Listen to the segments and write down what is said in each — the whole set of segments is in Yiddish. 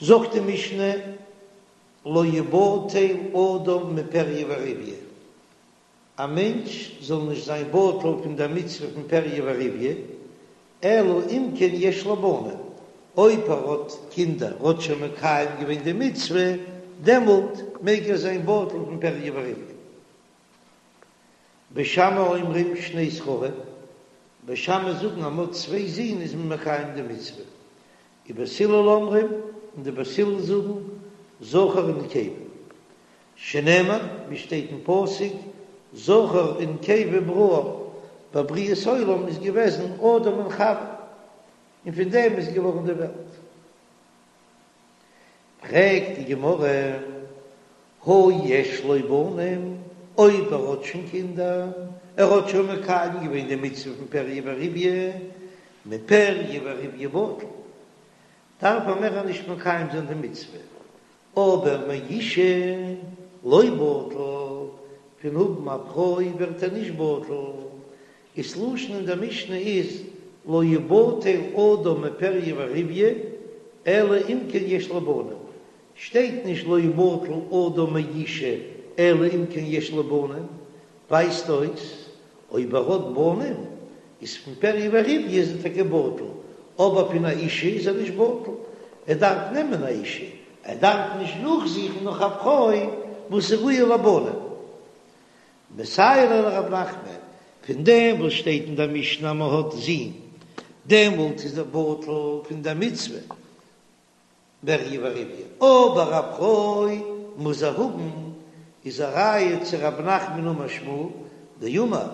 זאגט די משנה, לא יבטל אדם מפריה ורביה, א מענטש זאל נישט זיין בטל פון דער מצוה פון פריה ורביה, אלא אם כן יש לו בנים, אויב ער האט קינדער, האט שוין מקיים געווען די מצוה, דעמאלט מעג ער זיין בטל פון פריה ורביה. בית שמאי אומרים שני זכרים, בית שמאי זאגן אז מ'האט צוויי זין איז מען מקיים די מצוה, ובית הלל אומרים, און די בית הלל זאגן, זכר ונקבה, שנאמר, ווי שטייט אין פסוק, זכר ונקבה בראם, ביי בריאת העולם איז געוועזן אדם און חוה, און פון דעם איז געווארן די וועלט. פרעגט די גמרא, הא יש לו בנים, אויב ער האט שוין קינדער, ער האט שוין מקיים געווען די מצוה פון פריה ורביה, מפריה ורביה בטל, דארף ער מער נישט מקיים זיין די מצוה, אבער מאשה לא בטל, פון האבן א פרוי ווערט ער נישט בטל, איז לשון אין דער משנה איז לא יבטל אדם מפריה ורביה אלא אם כן יש לו בנים, שטייט נישט לא יבטל אדם מאשה אלא אם כן יש לו בנים, ווייזט אויס אויב ער האט בנים איז פון פריה ורביה איז ער טאקע בטל, אבער פון א אישה איז ער נישט בטל, ער דארף נעמען א אישה, ער דארף נישט נאכזוכן נאך א פרוי וואס איז ראויה לבנים. מסייע ליה לרב נחמן, פון דעם וואס שטייט אין דער משנה אז מען האט זין, דעמאלט איז ער בטל פון דער מצוה פריה ורביה, אבער א פרוי מוז ער האבן, איז א ראיה צו רב נחמן אמר שמואל, דאמר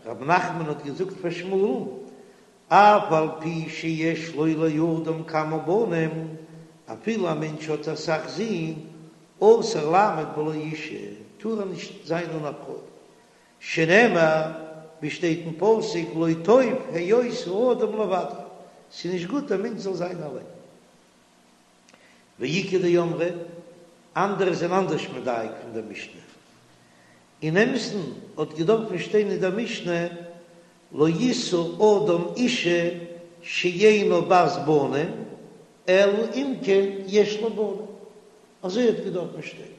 רב נחמן האט געזאגט פאר שמואל'ן, אף על פי שיש לו לאדם כמה בנים, אפילו א מענטש האט אסאך זין, אסור לעמוד בלא אישה, טאר ער נישט זיין אן א פרוי, שנאמר, ווי שטייט אין פסוק, לא טוב היות האדם לבדו, ס'איז נישט גוט א מענטש זאל זיין אליין. ואיכא דאמרי, אנדערע זענען אנדערש מדייק פון דער משנה. אין אמת'ן האט געדארפן שטיין אין דער משנה לא ישא אדם אישה שאינה בת בנים אלא אם כן יש לו בנים, אזוי האט געדארפן שטיין.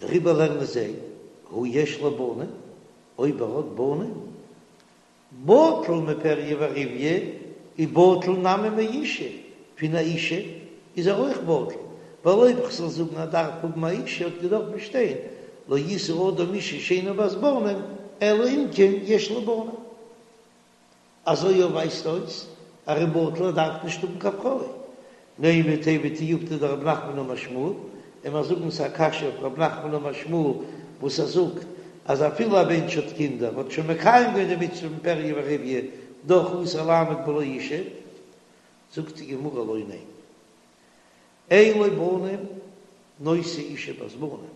דעריבער לערנען זיי, הא יש לו בנים, אויב ער האט בנים, בטל מפריה ורביה ובטל נמי מאישה, פון א אישה איז ער אויך בטל, ווייל אויב כ'זאל זאגן ער דארף האבן א אישה האט געדארפט שטיין לא ישא אדם אישה שאינה בת בנים אלא אם כן יש לו בנים. אזוי אויך ווייזט אויס אז ער איז בטל ער דארף נישט האבן קיין פרוי. נימא תיהוי תיובתא דרב נחמן אמר שמואל, און מיר זאגן ס'איז א קשיא אויף רב נחמן אמר שמואל וואס ער זאגט אז אפילו א מענטש האט קינדער האט שוין מקיים געווען די מצוה פון פריה ורביה דאך אסור לעמוד בלא אישה, זאגט די גמרא לא ניין אין לו בנים נושא אישה בת בנים,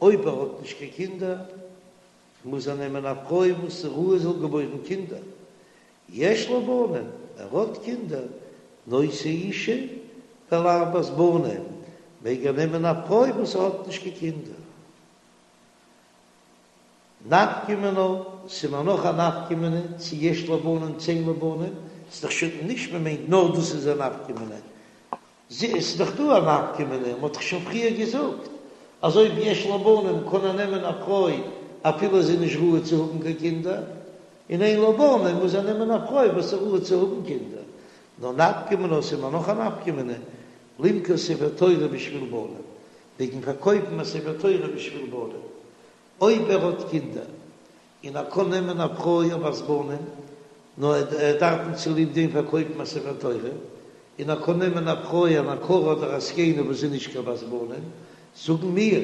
אויב ער האט נישט קיין קינדער מוז ער נעמען א פרוי וואס איז ראוי זאל געבוירן קינדער, יש לו בנים, ער האט קינדער, נושא אישה דלאו בת בנים, מעג ער נעמען א פרוי וואס האט נישט קיין קינדער. נפקא מינה, ס'איז מיר נאך א נפקא מינה צו יש לו בנים צו אין לו בנים, ס'איז דאך שוין נישט מען מיינט נאר דאס איז א נפקא מינה, ס'איז דאך דא א נפקא מינה, מ'האט דאך שוין פריער געזאגט אז אויב יש לו בנים קען ער נעמען א פרוי אפילו זי איז נישט ראוי צו האבן קיין קינדער, און אין לו בנים מוז ער נעמען א פרוי וואס איז ראוי צו האבן קינדער. נאר נפקא מינה, ס'איז מיר נאך א נפקא מינה, למכור ספר תורה בשביל בנים, וועגן פארקויפן א ספר תורה בשביל בנים, אויב ער האט קינדער און ער קען נעמען א פרוי א בת בנים, נאר ער דארף נישט צוליב דעם פארקויפן א ספר תורה, און ער קען נעמען א פרוי אן עקרה אדער א זקנה וואס איז נישט קיין בת בנים, זאגן מיר,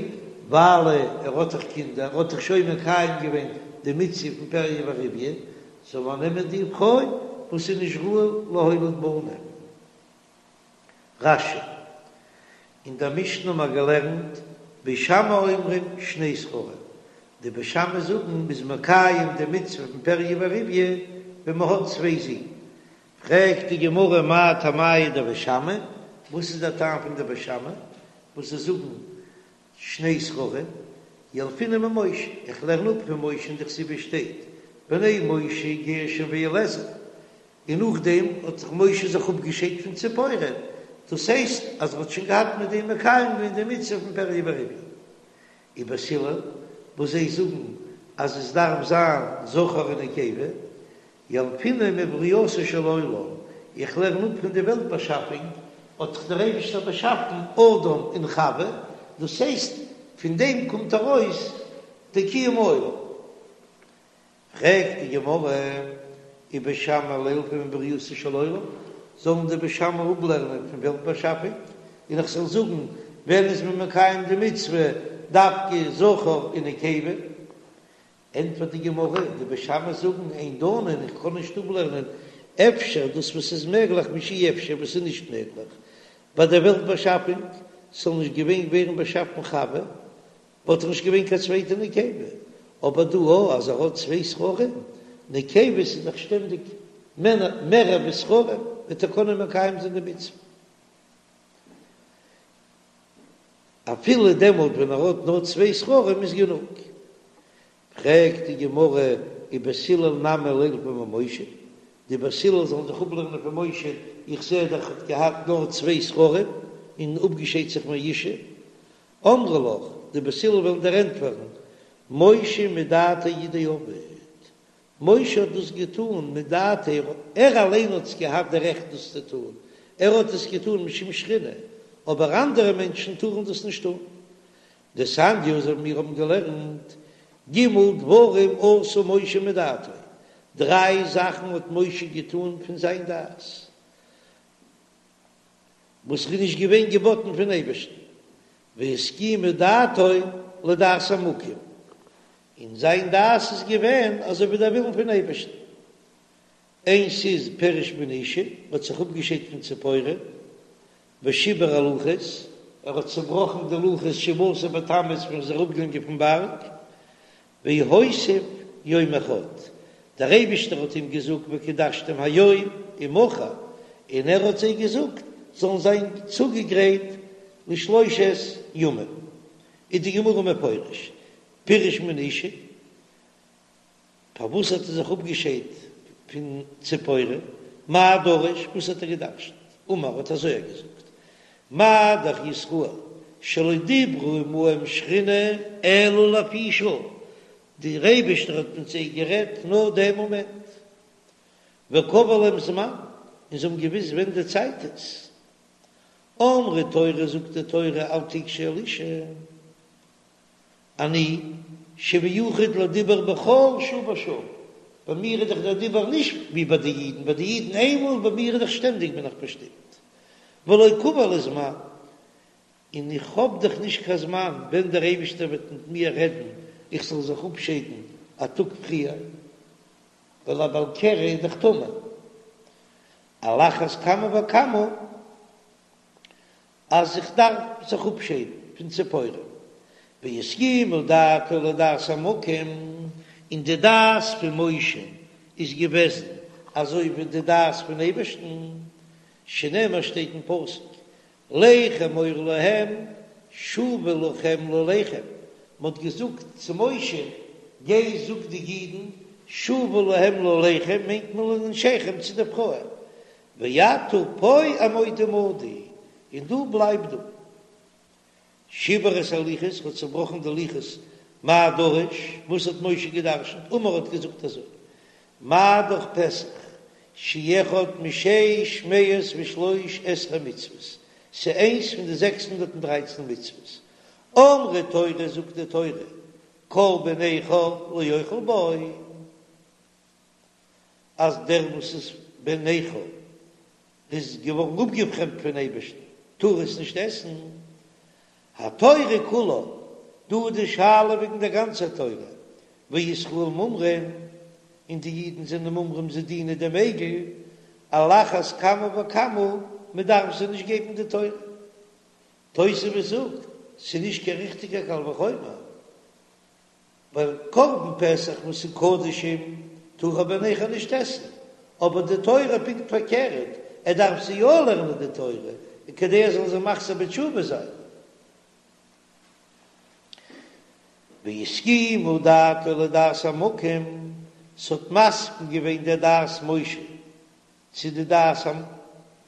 ווייל ער האט דאך קינדער, האט דאך שוין מקיים געווען די מצוה פון פריה ורביה, זאל ער נעמען די פרוי וואס איז נישט ראוי להוליד בנים. רש"י, אין דער משנה האבן מיר געלערנט בית שמאי אומרים שני זכרים, די בית שמאי זאגן מ'איז מקיים די מצוה פון פריה ורביה ווען מ'האט צוויי זין, פרעגט די גמרא מאי טעמייהו דבית שמאי, וואס איז דער טעם פון די בית שמאי וואס זיי זאגן שני זכרים, ילפינן ממשה, איך לערן אפ פון משה דכתיב, ס'שטייט בני משה גרשון ואליעזר. און נאכדעם האט זיך משה זיך אפגעשיידט פון ציפורה, דאס הייסט אז ער האט שוין געהאט מיט דעם מקיים געווען די מצוה פון פריה ורביה. ובית הלל וואס זיי זאגן אז עס דארף זיין זכר און נקבה, ילפינן מברייתו של עולם, איך לערן אפ פון די וועלט באשאפונג, האט דאך דער אייבישטער באשאפן אדם און חווה, דאס הייסט פון דעם קומט ארויס די קיום העולם. פרעגט די גמרא, ובית שמאי לילפו מברייתו של עולם, זאלן די בית שמאי אפלערנען פון וועלט באשאפונג, און איך זאל זאגן ווען איז מען מקיים די מצוה דווקא זכר און נקבה? ענטפערט די גמרא, די בית שמאי זאגן אין דנין, איך קען נישט אפלערנען אפשר דאס וואס איז מעגליך משאי אפשר וואס איז נישט מעגליך ביי דער וועלט באשאפונג, ס'זאל נישט געווען ווערן באשאפן חווה, וואלט דאך נישט געווען קיין צווייטע נקבה, אבער דא א אז ער האט צוויי זכרים, נקבות איז דאך שטענדיג מערער ווי זכרים, וועט ער קענען מקיים זיין די מצוה אפילו דעמאלט ווען ער האט נאר צוויי זכרים איז גענוג. פרעגט די גמרא ובית הלל נמי לילפו ממשה, די בית הלל זאלן זיך אפלערנען פון משה, איך זע דאך ער האט געהאט נאר צוויי זכרים און אפגעשיידט זיך מאשה, אמרי לך, די בית הלל וועלן דיר ענטפערן, משה מדעתיה הוא דעבד, משה האט דאס געטאן מדעתיה, ער אליין האט עס געהאט די רעכט דאס צו טאן, ער האט עס געטאן משום שכינה, אבער אנדערע מענטשן טארן דאס נישט טאן. דתניא, אזוי ווי מיר האבן געלערנט, ג' דברים עשה משה מדעתו, דריי זאכן האט משה געטאן פון זיין דעת, וואס איז נישט געווען געבאטן פון אייבערשטן, והסכימה דעתו לדעת המקום, און זיין דעת איז געווען אזוי ווי דער ווילן פון אייבערשטן. איינס איז פירש מן האשה, האט זיך אפגעשיידט פון ציפורה, ושיבר הלוחות, ער האט צעבראכן די לוחות שבעה עשר בתמוז ווען ער איז אראפגעגאנגען פון בארג, והוסיף יום אחד, דער אייבישטער האט אים געזאגט וקדשתם היום ומחר, און ער האט זיי געזאגט זאלן זיין צוגעגרייט לשלושת ימים, איז די גמרא מפרש, פירש מן האשה, פארוואס האט ער זיך אפגעשיידט פון ציפורה, מאי דרש, וואס האט ער געדרשנט, אמר האט אזוי ער געזאגט, מה דאך ישראל שלא דיברה עמהם שכינה אלא לפי שעה, דער אייבערשטער האט מיט זיי גערעדט נאר דעם מאמענט, וקבע להם זמן, און זיי האבן געוואוסט ווען די צייט איז, אמרה תורה זאגט די תורה אל תגשו אל אשה. אני שמיוחד לדיבור בכל שעה ושעה, ביי מיר איז דאך דער דיבור נישט ווי ביי די אידן, ביי די אידן איינמאל, ביי מיר איז דאך שטענדיג בין איך באשטימט, ולא קבע לי זמן, און איך האב דאך נישט קיין זמן ווען דער אייבישטער וועט מיט מיר רעדן איך זאל זיך אפשיידן א טאג פריער, ווייל א בעל קרי איז דאך טמא, על אחת כמה וכמה. אז איך דארף זיך אפשיידן פון ציפורה, והסכימה דעתו לדעת המקום, און די דעת פון משה איז געוועזן אזוי ווי די דעת פון אייבערשטן, שנאמר שטייט אין פסוק, לך אמור להם שובו לכם לאהליכם, מען האט געזאגט צו משה, גיי זאג די אידן, שובו להם לאהליכם מיינט מען לנשיכם צו די פרויען, ואתה פה עמוד עמדי, און דו בלייב דא. שיבר את הלוחות, האט צעבראכן די לוחות, מאי דרש, וואס האט משה געדרשנט, אמר האט געזאגט אזוי, מה דאך פסח, שהוא אחד משש מאות ושלוש עשרה מצוות, ס'איז איינס פון די 613 מצוות, אמרה תורה זאגט די תורה, כל בן נכר לא יאכל בו. אז דער וואס איז בן נכר איז געווארן אפגעפרעמדט פון אייבערשטן טאר עס נישט עסן, התורה כולה, דא איז די שאלה וועגן דער גאנצער תורה, וישראל מומרים, און די אידן זענען מומרים זיי דינען דעם עגל, על אחת כמה וכמה מען דארף זיי נישט געבן די תורה. תוספות זאגט, ס'איז נישט קיין ריכטיגער קל וחומר. ווייל קרבן פסח וואס איז קדשים טאר א בן נכר נישט עסן, אבער די תורה פונקט פארקערט, ער דארף זיי יא לערנען די תורה כדי ער זאל זיי מחזיר בתשובה זיין. והסכימה דעתו לדעת המקום, ס'האט מסכים געווען דער דעת משה. צו די דעת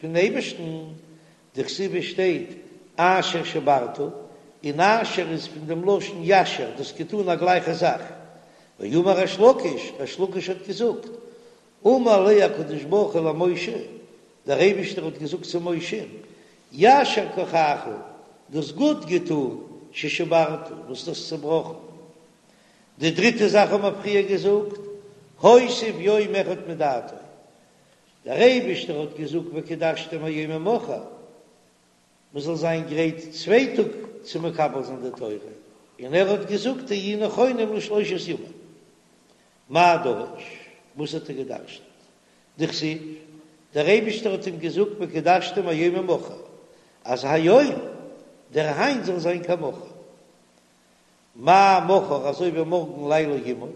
פון אייבערשטן, דכתיב עס שטייט אשר שברת, און אשר איז פון דעם לשון ישר, דו האסט געטאן א גלייכע זאך. ואמר ריש לקיש, ריש לקיש האט געזאגט, אמר ליה הקדוש ברוך הוא למשה, דער אייבערשטער האט געזאגט צו משה, יישר כחך, דו האסט גוט געטאן, ששברת, וואס דו האסט צעבראכן. די דריטע זאך האבן מיר פריער געזאגט, הוסיף יום אחד מדעתו, דער אייבערשטער האט געזאגט וקדשתם היום ומחר, מען זאל זיין גרייט צוויי טאג צו מקבל זיין די תורה, און ער האט געזאגט היו נכונים לשלושת ימים. מאי דרש? וואס האט ער געדרשנט? דכתיב, דער אייבערשטער האט אים געזאגט וקדשתם היום ומחר, אז היום, דער היינט זאל זיין כמחר. מה מחר אזוי ווי מארגן לילה עמו,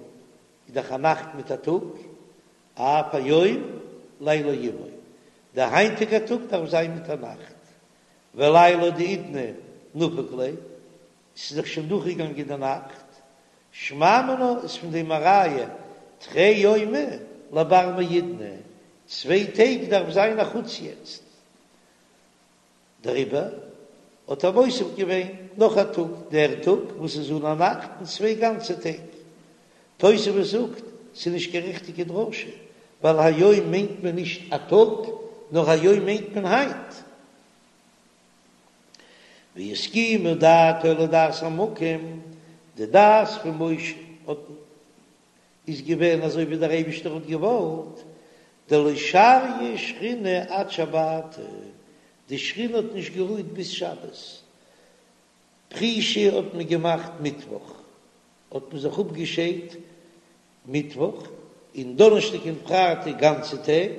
איז דאך א נאכט מיט א טאג, אף היום לילה עמו, דער היינטיגער טאג דארף זיין מיט א נאכט, ולילה דהאידנא נפק ליה, ס'איז דאך שוין דורכגעגאנגען די נאכט, שמע מינה איז פון דעם א ראיה, תרי יומי לבר מהאידנא, צוויי טעג דארף זיין א חוץ יעצט. דעריבער האט ער מוסיף געווען נאך א טאג, דער טאג וואס איז אן א נאכט און צוויי גאנצע טעג. תוספות זאגט, ס'איז נישט קיין ריכטיגע דרשה, ווייל היום מיינט מען נישט א טאג, נאר היום מיינט מען היינט. והסכימה דעתו לדעת המקום, די דעת פון משה האט איז געווען אזוי ווי דער אייבישטער האט געוואלט, דלא שריא שכינה עד שבתא, די שכינה האט נישט גערוהט ביז שבת, פרישה האט מען געמאכט מיטוואך, האט מען זיך אפגעשיידט מיטוואך, און דאנערשטאג און פרייטאג גאנצע טעג,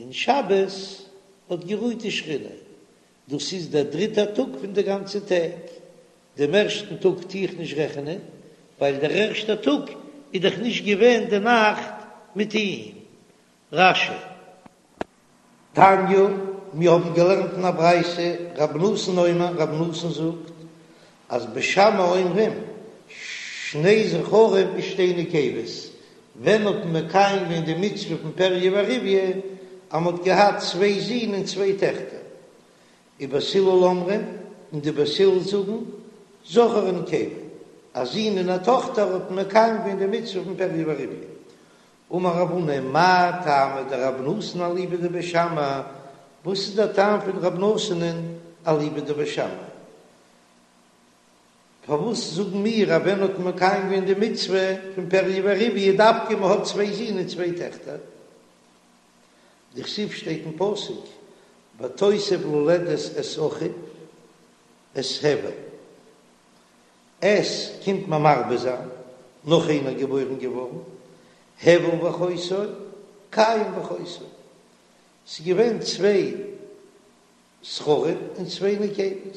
און שבת האט גערוהט די שכינה, דאס איז דער דריטער טאג פון די גאנצע טעג, דעם ערשטן טאג טו איך נישט רעכענען, ווייל דער ערשטער טאג איז דאך נישט געווען די נאכט מיט אים. רש"י. תניא, מיר האבן געלערנט אין א ברייתא, רבי נתן אומר, רבי נתן זאגט, אז בית שמאי אומרים, שני זכרים ושתי נקבות, ווען האט מען מקיים געווען די מצוה פון פריה ורביה, אז מען האט געהאט צוויי זין און צוויי טעכטער, ובית הלל אומרים, און די בית הלל זאגן, זכר ונקבה, א זון און א טאכטער האט מען מקיים געווען די מצוה פון פריה ורביה. אמר רב הונא, מאי טעמא דרבי נתן אליבא דבית שמאי, וואס איז דער טעם פון רבי נתן'ען אליבא דבית שמאי? פארוואס זאגן מיר אז ווען האט מען מקיים געווען די מצוה פון פריה ורביה דווקא מען האט צוויי זין און צוויי טעכטער? דכתיב שטייט אין פסוק ותוסף ללדת את אחיו את הבל, את קומט מען מרבה זיין, נאך איינער געבוירן געווארן, הבל ואחותו, קין ואחותו, ס'איז געווען צוויי זכרים און צוויי נקבות,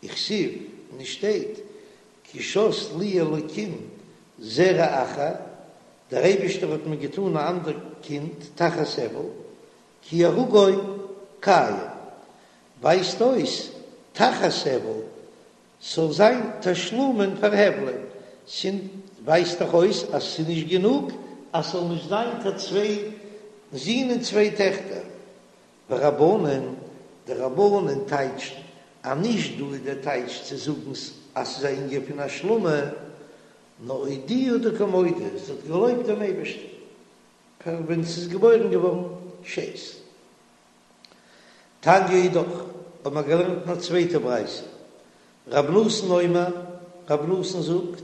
וכתיב און עס שטייט כי שת לי אלקים זרע אחר, דער אייבישטער האט מיר געטאן א אנדער קינד תחת הבל, כי הרגו קין, ווייזט אויס תחת הבל ס'זאל זיין תשלומין פאר הבל'ען, ס'ווייזט דאך אויס אז ס'איז נישט גענוג אז ס'זאל נישט זיין קיין צוויי זין און צוויי טעכטער. ורבנן, די רבנן טייטשן אז נישט דא איז דער טייטש צו זאגן אז ס'איז א ענין פון השלמה, נאר אודויי דקא מודה, זי האט געלויבט דעם אייבערשטן פאר ווען ס'איז געבוירן געווארן שת. תניא אידך, האט מען געלערנט אין א צווייטע ברייתא, רב נתן אומר, רב נתן זאגט,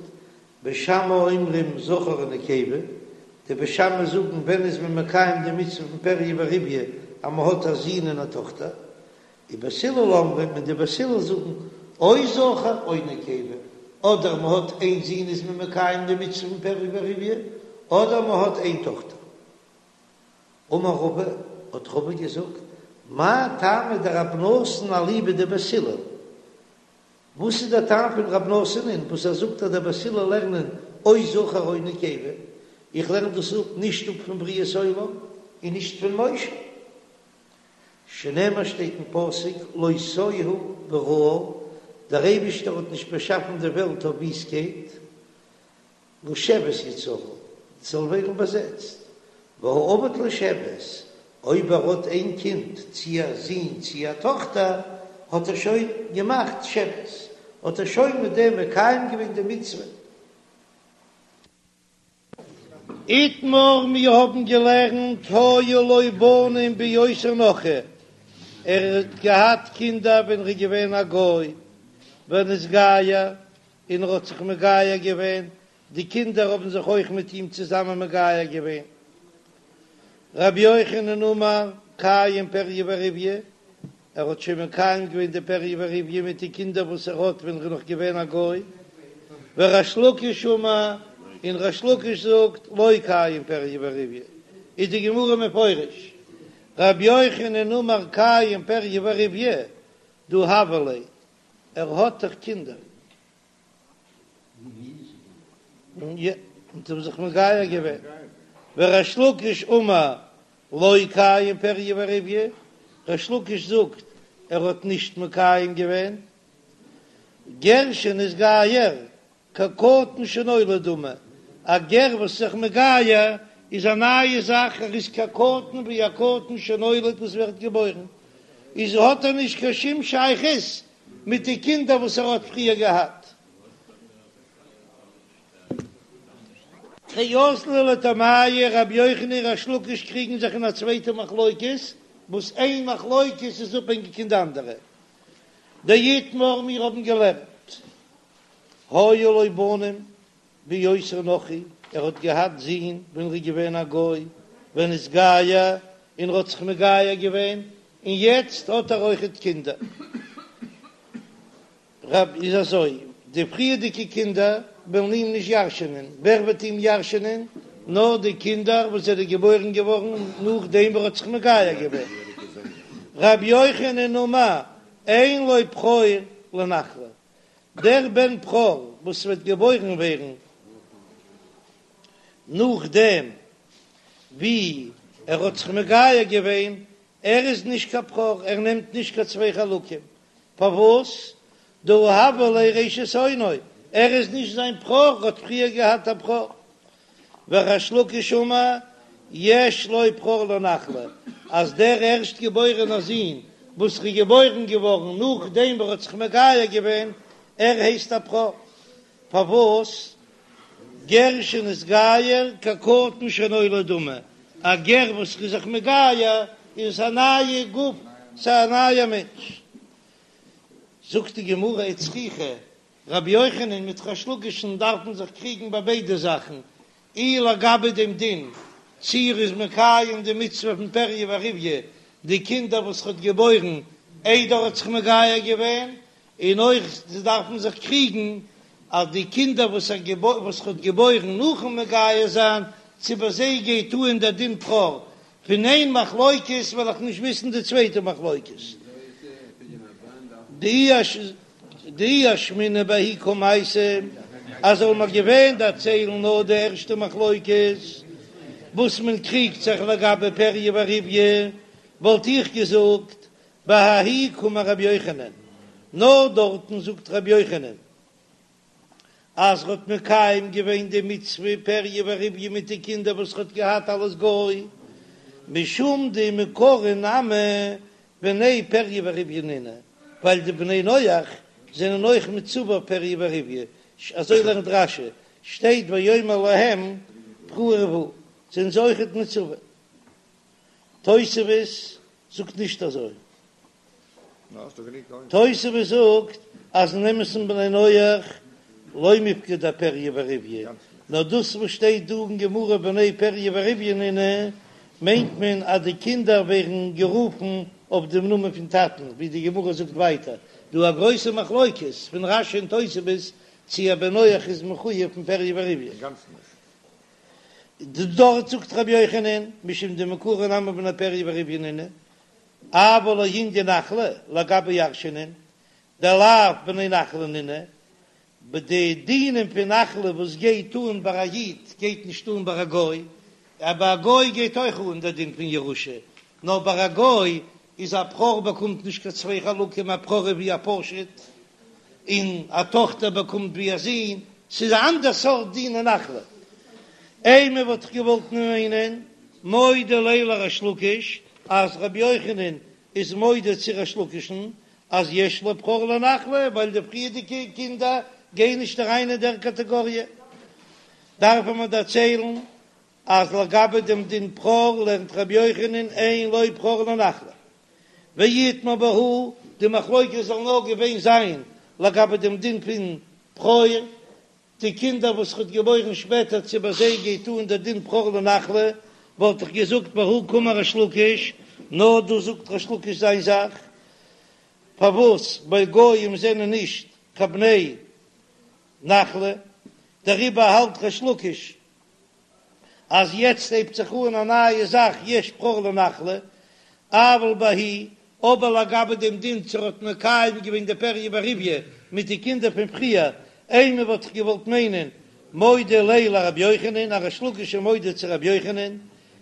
בית שמאי אומרים זכר ונקבה, די בית שמאי זאגן ווען איז מען מקיים די מצוה פון פריה ורביה אז מען האט א זון און א טאכטער, ובית הלל אומרים און די בית הלל זאגן או זכר או נקבה, אדער מען האט איין זון איז מען מקיים די מצוה פון פריה ורביה, אדער מען האט איין טאכטער. אמר רבא, האט רבא געזאגט, מאי טעמא דרב נתן אליבא דבית הלל? וואס איז דער טעם פון רב נתן'ען וואס ער זאגט אז דער בית הלל לערנען או זכר או נקבה? איך לערן דאס אפ נישט אפ פון בריאת עולם און נישט פון משה. שנאמר שטייט אין פסוק לא תוהו בראה, דער אייבישטער האט נישט באשאפן די וועלט אויף וויסטקייט, לשבת יצרה, זאל ווערן באזעצט, והא עביד לשבת. אויב ער האט איין קינד, צי א זון צי א טאכטער, האט ער שוין געמאכט שבת, האט ער שוין מיט דעם מקיים געווען די מצוה. איתמר, מיר האבן געלערנט היו לו בנים בהיותו נכרי, ער האט געהאט קינדער ווען ער איז געווען א גוי, ונתגייר, און ער האט זיך מגייר געווען, די קינדער האבן זיך אויך מיט אים צוזאמען מגייר געווען. רבי יוחנן אמר, קיים פריה ורביה, ער האט שוין מקיים געווען די פריה ורביה מיט די קינדער וואס ער האט ווען ער איז נאך געווען א גוי. וריש לקיש אמר, און ריש לקיש זאגט, לא קיים פריה ורביה, איז די גמרא מפרש, רבי יוחנן אמר קיים פריה ורביה, דהא הוו ליה, ער האט דאך קינדער. און זיי האבן זיך מגייר געווען, וריש לקיש אמר לא קיים פריה ורביה, ריש לקיש זאגט ער האט נישט מקיים געווען, גר שנתגייר כקטן שנולד דמי, א גר וואס איז זיך מגייר איז א נייע זאך, ער איז כקטן ווי א קטן שנולד וואס ווערט געבוירן, איז האט ער נישט קיין שום שייכות מיט די קינדער וואס ער האט פריער געהאט. תרי אזלו לטעמייהו רבי יוחנן און ריש לקיש קריגן זיך אין א צווייטע מחלוקת, וואס איין מחלוקת איז אפהענגיק אין די אנדערע. דאיתמר מיר האבן געלערנט היו לו בנים בהיותו נכרי, ער האט געהאט זין ווען ער איז געווען א גוי, ונתגייר, און ער האט זיך מגייר געווען, און יעצט האט ער אויכעט קינדער. רב איז אזוי, די פריערדיגע קינדער וועלן אים נישט ירש'ענען, ווער וועט אים ירש'ענען? נאר די קינדער וואס זענען געבוירן געווארן נאכדעם וואס ער האט זיך מגייר געווען. רבי יוחנן אמר, אין לו בכור לנחלה, דער בן בכור וואס וועט געבוירן ווערן נאכדעם ווי ער האט זיך מגייר געווען, ער איז נישט קיין בכור, ער נעמט נישט קיין צוויי חלקים, פארוואס? דהא הוה ליה ראשית אונו, ער איז נישט זיין בכור, ער האט פריער געהאט א בכור. וריש לקיש אמר, יש לו בכור לנחלה, אז דער ערשט געבוירענער זון וואס איז געבוירן געווארן נאכדעם וואס ער האט זיך מגייר געווען, ער הייסט א בכור. פארוואס? גר שנתגייר כקטן שנולד דמי, א גר וואס איז זיך מגייר איז עס א נייע גוף, ס'איז א נייער מענטש. זאגט די גמרא וצריכא, רבי יוחנן מיט ריש לקיש'ן דארפן זיך קריגן ביי ביידע זאכן, אי לגבי דעם דין צי ער איז מקיים די מצוה פון פריה ורביה די קינדער וואס ער האט געבוירן איידער ער האט זיך מגייר געווען, און אויך זיי דארפן זיך קריגן אז די קינדער וואס ער וואס ער האט געבוירן נאכן מגייר זיין צו ביי זיי גייט אן דער דין בכור, פון איין מחלוקת וועל איך נישט וויסן די צווייטע מחלוקת. דאי אשמעינן בההיא קמייתא, אז זאל מען געווען דערציילן נאר די ערשטע מחלוקת וואס מען קריגט זיך לגבי פריה ורביה, וואלט איך געזאגט בההיא קאמר רבי יוחנן, נאר דארטן זאגט רבי יוחנן אז ר'האט מקיים געווען די מצוה פריה ורביה מיט די קינדער וואס ר'האט געהאט אלס גוי, משום דמעיקרא נמי בני פריה ורביה נינהו, ווייל די בני נח זענען אויך מצווה פריה ורביה, אזוי לערנט רש"י, שטייט ויאמר להם פרו ורבו, זענען זיי אויכעט מצווה. תוספות זאגט נישט אזוי. תוספות זאגט אז אין אמת'ן בני נח לא מיפקדי אפריה ורביה, נאר דאס וואס שטייט דא אין גמרא בני פריה ורביה נינהו, מיינט מען אז די קינדער ווערן גערופן אויף דעם נאמען פון טאטן, ווי די גמרא זאגט ווייטער, דא א גרויסע מחלוקת פון רש"י און תוספות צי א בן נח איז מחויב פון פריה ורביה. דארט זאגט רבי יוחנן משום דמעיקרא נמי בני פריה ורביה נינהו, אבל לענין נחלה לגבי ירשענען דלאו בני נחלה נינהו, די דינים פון נחלה וואס גייט אן ביי א איד גייט נישט אן ביי א גוי, ביי א גוי גייט אויך אן דער דין פון ירושה, נאר ביי א גוי איז א בכור באקומט נישט קיין צוויי חלקים, א בכור איז ווי א פשוט, און א טאכטער באקומט ווי א זון, ס'איז א אנדער סארט דין אין נחלה. אימא וואלט איך געוואלט מיינען, מודה ליה לריש לקיש. אז רבי יוחנן איז מודה צו ריש לקיש'ן אז יש לו בכור לנחלה ווייל די פריערדיגע קינדער גייען נישט אריין אין דער קאטעגאריע. דארפן מיר דערציילן אז לגבי דעם דין בכור לערנט רבי יוחנן אין לו בכור לנחלה. ואיתמר בהא, די מחלוקת זאל נאר געווען זיין לגבי דעם דין פון בכור, די קינדער וואס ער האט געבוירן שפעטער צו ביי זיי גייט אן דער דין בכור לנחלה, וואלט איך געזאגט בהא קאמר ריש לקיש, נאר דא זאגט ריש לקיש זיין זאך, פארוואס ווייל גויים זענען נישט קיין בני נחלה, דעריבער האלט ריש לקיש אז יעצט הייבט זיך אן א נייע זאך יש בכור לנחלה, אבל בההיא, אבער לגבי דעם דין צו ער האט מקיים געווען די פריה ורביה מיט די קינדער פון פריער, אימא וואלט איך געוואלט מיינען מודה ליה לרבי יוחנן, אז ריש לקיש איז מודה צו רבי יוחנן,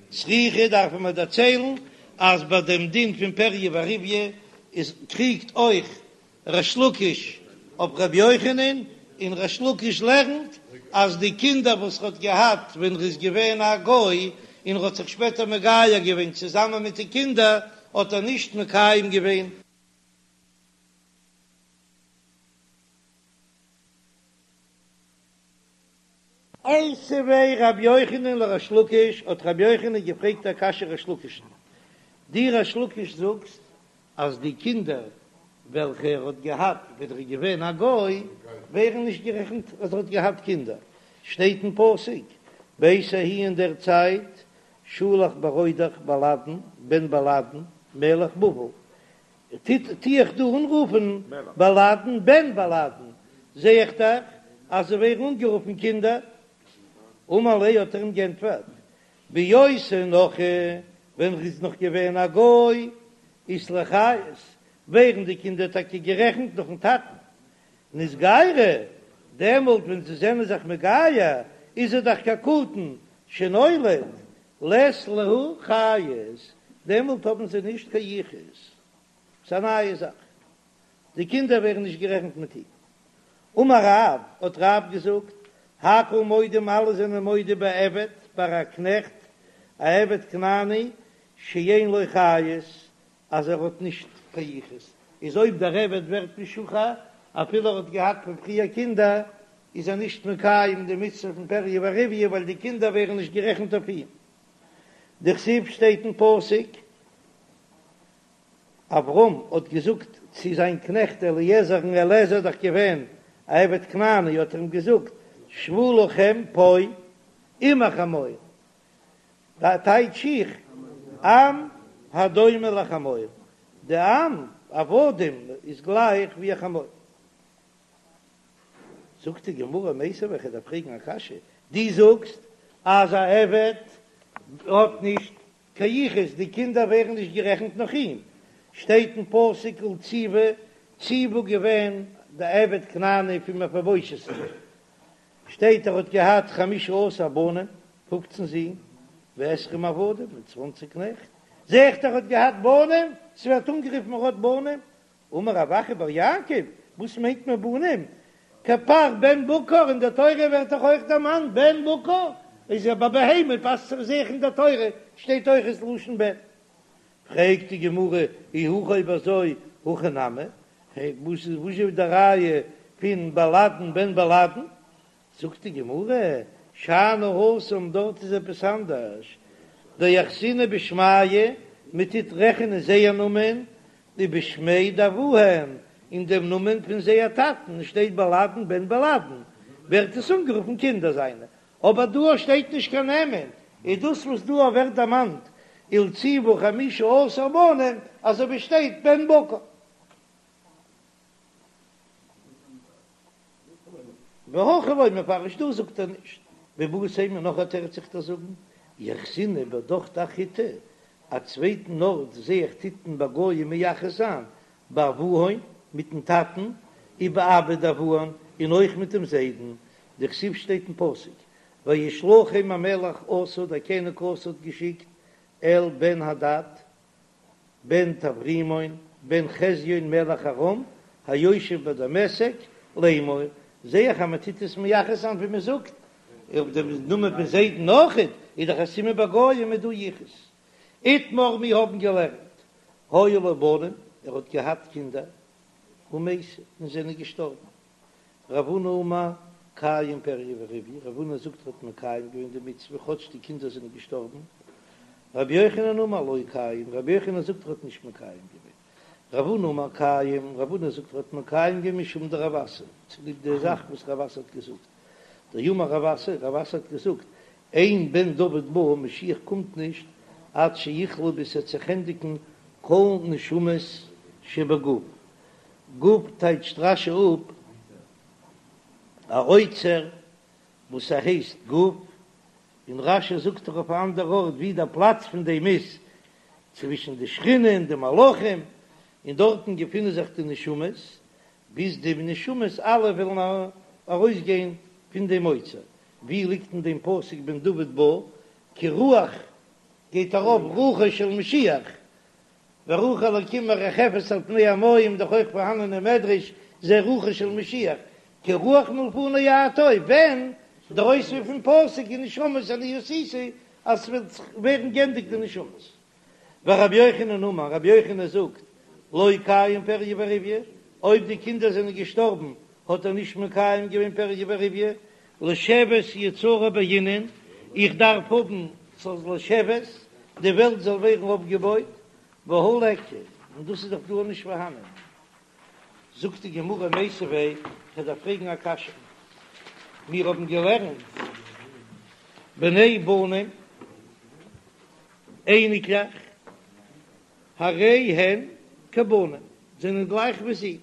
צריכא דארפן מיר דערציילן אז ביי דעם דין פון פריה ורביה איז קריגט אויך ריש לקיש אויף רבי יוחנן, און ריש לקיש לערנט אז די קינדער וואס ער האט געהאט ווען ער איז געווען א גוי און ער האט זיך שפעטער מגייר געווען צוזאמען מיט די קינדער האט ער נישט מקיים געווען. איתיביה רבי יוחנן לריש לקיש, האט רבי יוחנן געפרעגט א קשיא ריש לקיש'ן, דו ריש לקיש זאגסט אז די קינדער וועלכע ער האט געהאט ווען ער איז געווען א גוי ווערן נישט גערעכנט אז ער האט געהאט קינדער, שטייט אין פסוק בעת ההיא אין דער צייט שלח מרודך בלאדן בן בלאדן מלך בבל, טו איך דא אנרופן בלאדן בן בלאדן, זע איך דאך אז זיי ווערן אנגערופן קינדער. אמר ליה האט ער אים גענטפערט, בהיותו נכרי, ווען ער איז נאך געווען א גוי, אית להו חיות, ווערן די קינדער טאקע גערעכנט נאכן טאטן. נתגיירו, דעמאלט ווען זיי זענען זיך מגייר, איז ער דאך כקטן שנולד, לית להו חיות, דעמאלט האבן זיי נישט קיין יחוס. ס'איז א נייע זאך. די קינדער ווערן נישט גערעכנט מיט אים. אמר רב, האט רב געזאגט, הכל מודים אלע זענען מודה בעבד, ביי א קנעכט, א עבד כנעני, שאין לו חיות, אז ער האט נישט קיין יחוס, איז אויב דער עבד ווערט משוחרר, אפילו ער האט געהאט פון פריער קינדער, איז ער נישט מקיים די מצוה פון פריה ורביה ווייל די קינדער ווערן נישט גערעכנט אויף אים. דכתיב שטייט אין פסוק, אברהם האט געזאגט צו זיין קנעכט אליעזר, און אליעזר איז דאך געווען א עבד כנעני, האט ער אים געזאגט, שבו לכם פה עם החמור, טייטש איך, עם הדומה לחמור, די עם, עבדים, איז גלייך ווי א חמור. זאגט די גמרא מיתיבי איך דארף פרעגן א קשיא, דו זאגסט אז א עבד האט נישט קיין יחוס, די קינדער ווערן נישט גערעכנט נאך אים, שטייט אין פסוק ולציבא, ציבא געווען די עבד כנעני פון מפיבושת, שטייט ער האט געהאט חמשה עשר בנים, פופצן זין, ועשרים עבדים, און צוואנציג קנעכט, זע איך ער האט געהאט בנים, ס'ווערט אנגערופן ער האט בנים, אמר רב אחא בר יעקב, וואס מיינט מען בנים? כפר בן בקר, אין דער תורה ווערט דאך אויך דערמאנט בן בקר, איז ער ביי בהמה פאסט זיך זיך אין דער תורה שטייט אויך עס לשון בן. פרעגט די גמרא, אי הכי אויב אזוי הכא נמי, וואס איז וואס איז די ראיה פון בלאדן בן בלאדן? זאגט די גמרא, שאני התם דארט איז עפעס אנדערש, דאחזינהו בשמייהו, מען טוט רעכענען זייער נאמען, ובשמיה דאבוהון, און דעם נאמען פון זייער טאטן, שטייט בלאדן בן בלאדן, ווערט עס אנגערופן קינדער זיינע, אבער דא שטייט נישט קיין נעמען, איז דאס וואס דא ווערט דערמאנט ולציבא חמשה עשר בנים, אזוי ווי שטייט בן בקר. והכא לא מפרש דא זאגט ער נישט ואיבעית אימא נאך א תירוץ איך דיר זאגן יחזינהו בהדך דאחריתא א צווייטן ארט זעה איך טוט מען ביי גויים מייחס זיין באבוהון מיטן טאטן ובאבא דאבוהון און אויך מיט דעם זיידן דכתיב שטייט אין פסוק וישלחם המלך אסא דער קעניג אסא האט געשיקט אל בן הדד בן טברימון בן חזיון מלך ארם היושב בדמשק לאמור, זעה איך אז מען טוט עס מייחס זיין ווי מען זאגט אויף דעם נאמען פון זיידן אויכעט, איז דאך א סימן ביי גויים איז דא יחוס. איתמר מיר האבן געלערנט, היו לו בנים, ער האט געהאט קינדער, ומתו, און זענען געשטארבן. רב הונא אמר, קיים פריה ורביה, רב הונא זאגט ער האט מקיים געווען די מצוה כאטש די קינדער זענען געשטארבן. רבי יוחנן אמר לא קיים, רבי יוחנן זאגט ער האט נישט מקיים געווען. רב הונא אמר קיים, רב הונא זאגט ער האט מקיים געווען משום דרב אסי, צוליב די זאך וואס רב אסי האט געזאגט. דאמר רב אסי, רב אסי האט געזאגט, אין בן דוד בא, משיח קומט נישט עד שיכלו ביז ס'עט זיך ענדיגן כל נשמות שבגוף. גוף טייטשט רש"י אפ א אוצר וואס ער הייסט גוף, און רש"י זאגט דאך אויף א אנדער ארט ווי דער פלאץ פון דעם איז, צווישן די שכינה און די מלאכים, און דארטן געפינען זיך די נשמות, ביז די נשמות אלע וועלן ארויסגיין פון דעם אוצר. ווי ליגט אין דעם פסוק בן דוד בא, כי רוח גייט ארויף רוחו של משיח, ורוח אלקים מרחפת על פני המים, דאך אויך פארהאנען אין מדרש זה רוחו של משיח, כי רוח מלפני אתה, ווען דער אויספיר פון פסוק ונשמות אני עשיתי אז ס'וועט ווערן גענדיגט די נשמות. ורבי יוחנן אמר, רבי יוחנן זאגט, לא קיים פריה ורביה, אויב די קינדער זענען געשטארבן האט ער נישט מקיים געווען פריה ורביה, לשבת יצרה בעינן, איך דארף האבן ס'זאל לשבת, די וועלט זאל ווערן אויפגעבויט, והא ליכא, און דאס איז דאך דא נישט פארהאנען. זאגט די גמרא מיתיבי, כ'דארף פרעגן א קשיא, מיר האבן געלערנט בני בנים, אייניקלעך, הרי הן כבנים, זענען גלייך ווי זי,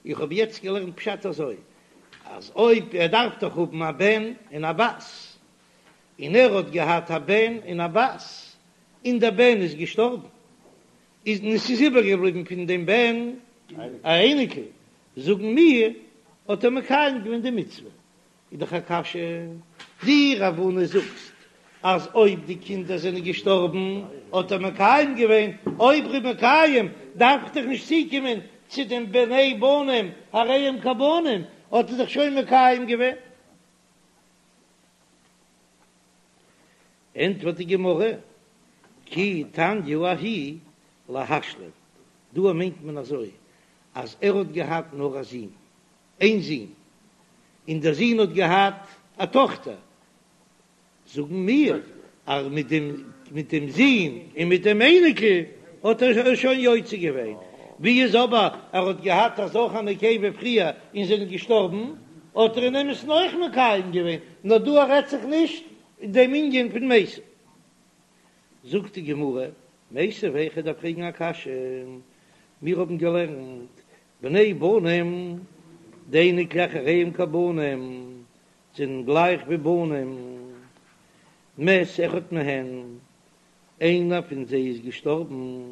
איך האב יעצט געלערנט פשט אזוי, אז אויב ער דארף דאך האבן א בן און א בת, און ער האט געהאט א בן און א בת, און דער בן איז געשטארבן, איז און עס איז איבערגעבליבן פון דעם בן א אייניקל, זאגן מיר, האט ער מקיים געווען די מצוה. איז דאך א קשיא, דו רב הונא זאגסט אז אויב די קינדער זענען געשטארבן האט ער מקיים געווען, אויב ר'איז מקיים דארף איך דאך נישט צוקומען צו דעם בני בנים הרי הם כבנים, האט ער דאך שוין מקיים געווען. ענטפערט די גמרא, כי תניא ההיא להשלים, דא מיינט מען אזוי אז ער האט געהאט נאר א זון, איין זון, און דער זון האט געהאט א טאכטער, זאגן מיר אז מיט דעם מיט דעם זון און מיט דעם אייניקל האט ער שוין יוצא געווען, ווי איז אבער ער האט געהאט א זכר נקבה פריער און זענען געשטארבן, האט ער אין אמת'ן אויך מקיים געווען, נאר דא רעדט זיך נישט דעם ענין פון מתו. זאגט די גמרא, מיתיבי, כ'דארף פרעגן א קשיא, מיר האבן געלערנט בני בנים, די אייניקלעך הרי הם כבנים, זענען גלייך ווי בנים, מת אחד מהן, איינער פון זיי איז געשטארבן,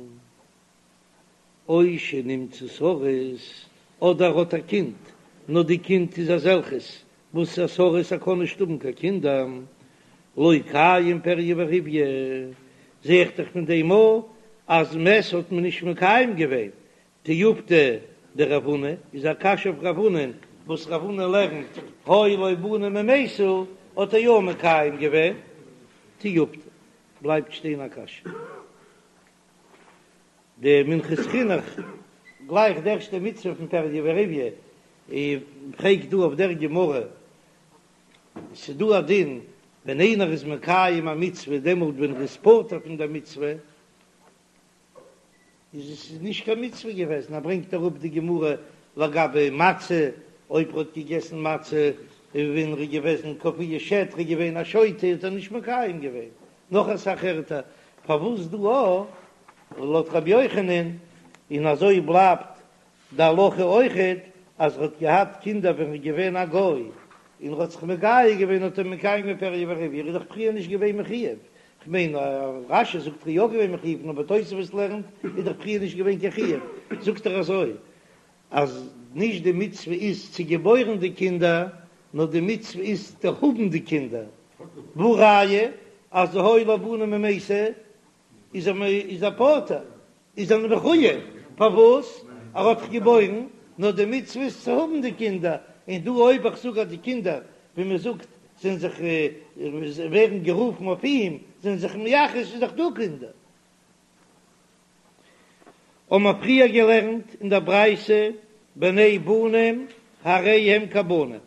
או שנמצא סריס, אדער האט א קינד, נאר די קינד איז אזעלכעס וואס א סריס ער קען נישט האבן קיין קינדער, לא קיים פריה ורביה, זע איך דאך פון דעם א אז מת האט מען נישט מקיים געווען, תיובתא דרב הונא איז א קשיא אויף רב הונא וואס רב הונא לערנט היו לו בנים ומתו האט ער יא מקיים געווען תיובתא בלייבט שטיין א קשיא די מנחת חינוך גלייך די ערשטע מצוה פון פריה ורביה און פרעגט דא אויף דער גמרא ס'דא א דין ווען איינער איז מקיים א מצוה דעמאלט ווען ער איז פטור פון דער מצוה איז עס איז נישט קיין מצוה געוועזן, ער ברענגט אראפ די גמרא לגבי מצה, אויב ער האט געגעסן מצה ווען ער איז געוועזן קפואה שד, ער איז געווען א שוטה האט ער נישט מקיים געווען, נאך אסאך ערטער, פארוואס דא א לויט רבי יוחנן, און אזוי בלייבט די הלכה אויכעט אז ער האט געהאט קינדער ווען ער איז געווען א גוי און ער האט זיך מגייר געווען האט ער מקיים געווען פריה ורביה, ער איז דאך פריער נישט געווען מחויב, כ'מיין רש"י זאגט ער איז יא געווען מחויב אבער תוספות לערנט איז דאך פריער נישט געווען קיין חיוב, זאגט ער אזוי אז נישט די מצוה איז צו געבוירן די קינדער נאר די מצוה איז צו האבן די קינדער, והא ראיה אז היו לו בנים ומתו איז ער איז ער פטור. איז ער מחויב, פארוואס? ער האט דאך געבוירן, נאר די מצוה איז צו האבן די קינדער, און דא אויב איך זאג אז די קינדער, ווי מען זאגט, זענען זיך, ווערן גערופן אויף אים, זענען זיך מייחס, איז דאך דא קינדער. האבן מיר פריער געלערנט אין דער ברייתא בני בנים הרי הם כבנים,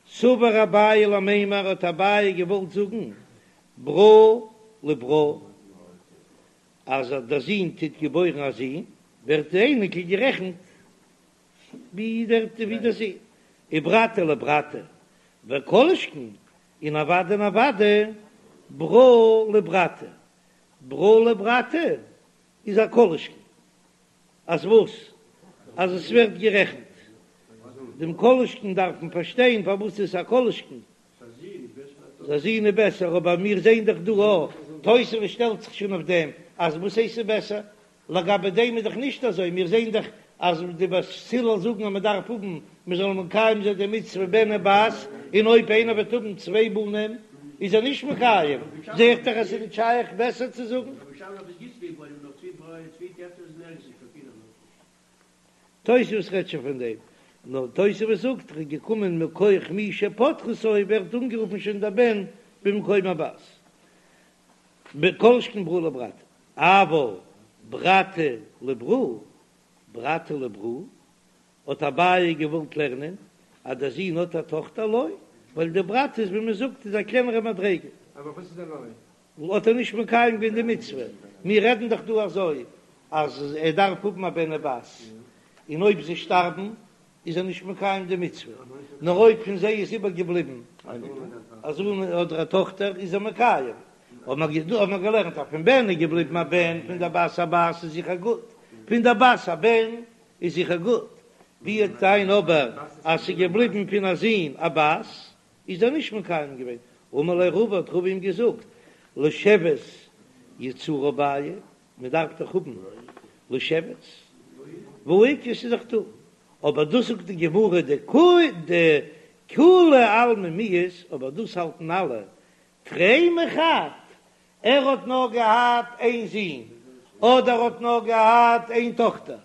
סבר אביי למימר האט אביי געוואלט זאגן ברא לברא אז דער זון טוט געבוירן א זון ווערט די אייניקל גערעכנט ווי דער ווי דער זון, וברתא לברתא וכל שכן און אוודאי און אוודאי ברא לברתא, ברא לברתא איז א כל שכן אז וואס? אז עס ווערט גערעכנט. דעם כל שכן דארף מען פארשטיין פארוואס איז עס א כל שכן. א זון איז בעסער, אבער מיר זעען דאך דא א תוספות שטעלט זיך שוין אויף דעם אז וואס הייסט ס'איז בעסער? לגבי דעם איז דאך נישט אזוי, מיר זעען דאך אז די בית הלל זאגן אז מען דארף האבן מען זאל מקיים זיין די מצוה בן ובת, און אויב איינער וועט האבן צוויי בנים איז ער נישט מקיים, זע איך דאך אז ס'איז נישט שייך בעסער צו זאגן. תוספות רעדט שוין פון דעם, נאר תוספות זאגט ער איז געקומען מכח מי שפטרתו ווערט אנגערופן שוין דער בן במקום הבת, כל שכן ברא לברתא, אבל ברתא לברא, ברתא לברא, האט אביי געוואלט לערנען אז דער זון האט א טאכטער לא, ווייל די ברתא איז ווי מען זאגט איז א קלענערע מדריגה. אבער וואס איז די לא? האט ער נישט מקיים געווען די מצוה, מיר רעדן דאך דא אזוי אז ער דארף האבן א בן ובת, און אויב זיי שטארבן איז ער נישט מקיים די מצוה, נאר אויב פון זיי איז איבערגעבליבן א זון אדער א טאכטער איז ער מקיים, האט מען געלערנט אז פון בן איז געבליבן א בן, פון דער בת א בת איז זיכער גוט, פון דער בת א בן איז זיכער גוט, ווי וועט זיין אבער אז ס'איז געבליבן פון א זון א בת, איז ער נישט מקיים געווען, אמר ליה רבא האט רבא אים געזאגט, לשבת יצרה בעיא, מען דארף דאך האבן לשבת, והא איכא ס'איז דאך דא, אבער דאס זאגט די גמרא דכולי עלמא מיהת, אבער דאס האלטן אלע, תרי מחד, ער האט נאר געהאט איין זון, אדער האט נאר געהאט איין טאכטער,